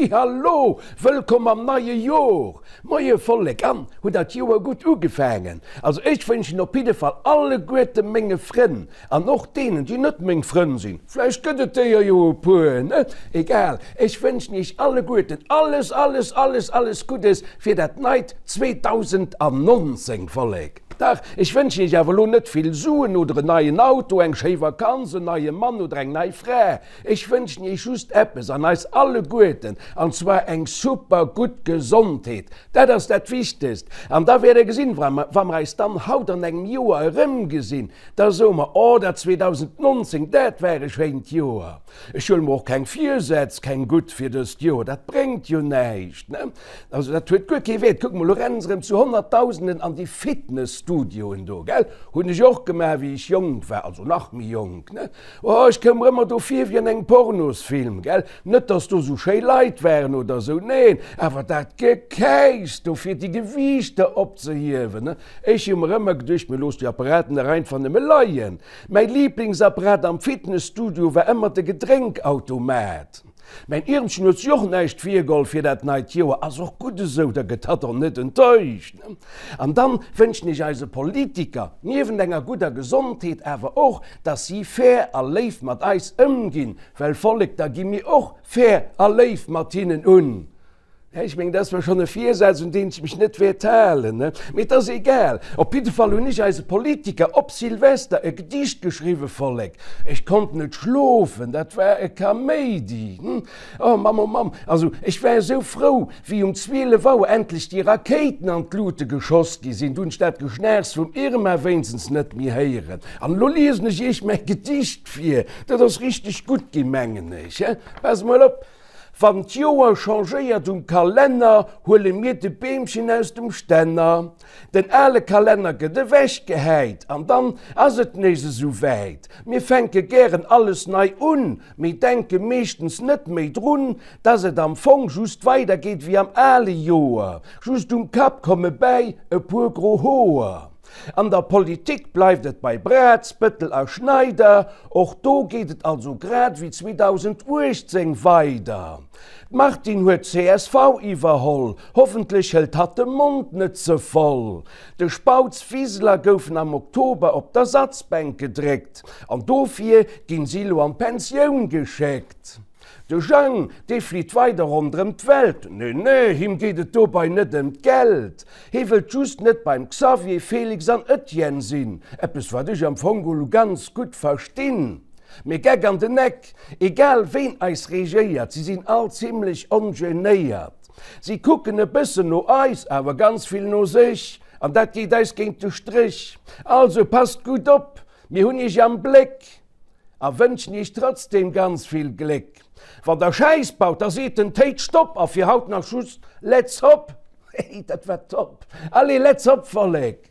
Halli hallo, wëllkomm am neie Jor! Moie Vollek, an hutt der d'Joer gutt ugefaangen? Also ech wënschen op jidde Fall alleguerte menge Frënn, an och deenen déi net meng Frënn sinn, vläicht gëtt et déier jo e puer, ne? Egal, ech wënschen iech alleguerten alles, alles, alles, alles Guddes fir dat neit 2019, Vollek! Dach, ech wënschen iech awer elo net vill Suen oder en neien Auto, eng schéi Vakanz, en neie Mann oder eng nei Fra. Ech wënschen iech just eppes, an eis alleguerten, an zwar eng super gutt Gesondheet. Dat ass dat Wichtegst. An da wäert der gesinn, wa mer eis dann haut an engem Joer erëmgesinn, da soe mer, Oh, dat 2019, dat war e schéint Joer. Ech huele mer och keng Virsätz, keng gutt fir dëst Joer, dat bréngt jo näischt, ne? Also dat huet guer kee Wäert. Kuck mol, elo rennen se erëm zu Honnertdausenden an déi Fitnesstudioen do, gell? Hunn ech och gemaach, wéi ech jonk war, also nach méi jonk, ne? Oh, ech koum mer ëmmer do vir wéi an engem Pornosfilm, gell? Net, dass do sou schéi Leit waren oder sou, neen, awer dat Gekäichs do fir déi Gewiichter opzehiewen, ne? Ech hu mer ëmmer geduecht, mir looss déi Apparaten dach einfach nëmme leien. Mäi Liblingsapparat am Fitnesstudio war ëmmer de Gedrénkautomat. Mäin Iermchen huet sech och näischt virgeholl fir dat neit Joer, ass och gutt esou, da gëtt hatt och net enttäuscht. An dann wënschen ech eise Politiker, niewent enger gudder Gesondheet, awer och, dass si fair a léif mat eis ëmginn, well Vollek, da gi mir och fair a léif mat hinnen un. Ech mengen, dat ass zwar schonn e Virsaz, un deen ech mech net wäert halen, mee et ass egal. Op jidde Fall hunn ech eise Politiker op Silvester e Gedicht geschriwwen, Vollek, ech konnt net schlofen, dat war e Kaméidi. Oh Mamm, oh Mamm, also ech war esou frou, wéi um 12 Auer endlech déi Rakéiten an d'Lute geschoss gi sinn, du hunn ech dat Geschnaachs vum Irma wéinstens net méi héieren. An elo liesen ech iech mäi Gedicht vir, dat ass richteg gutt ginn, mengen ech. Pass mol op. Wann d'Joer changéiert um Kalenner, huele mir de Beemchen aus dem Stänner. Den ale Kalenner gëtt ewechgehäit an dann ass et nees esou wäit. Mir fänke gären alles nei un, mee denke meeschtens net méi drun, dass et am Fong just weidergeet wéi am ale Joer. Just um Kapp komme bäi e puer gro Hoer. An der Politik bleift et bei Braz, Bëttel a Schneider, och do geet et also grad wéi 2018 weider. D'Martine huet csv iwwerholl, hoffentlech hëlt hatt de Mond net ze voll. De Spautz, Wiseler goufen am Oktober op d'Ersatzbänk gedréckt an dofir ginn si lo an d'Pensioun geschéckt. De Jang, dee flitt weider ronderëm d'Welt. Nee, nee, him geet et dobei net ëm d'Geld. Hee wëllt just net beim Xavier, Felix an Etienne sinn. Eppes, wat ech am Fong elo ganz gutt verstinn. Mee Geck an den Eck, egal ween eis regéiert, si sinn all zimlech ongenéiert. Si kucken e bëssen no eis, awer ganz vill no sech. An dat geet eis géint de Stréch. Also passt gutt op, mir hunn iech am Bléck. A wënschen iech trotzdem ganz vill Gléck. Wann der Schäiss baut, da seet den Téit Stopp a fir haut nach just Let's Hop! Hey, dat war top! Allez, let's hop, Vollek!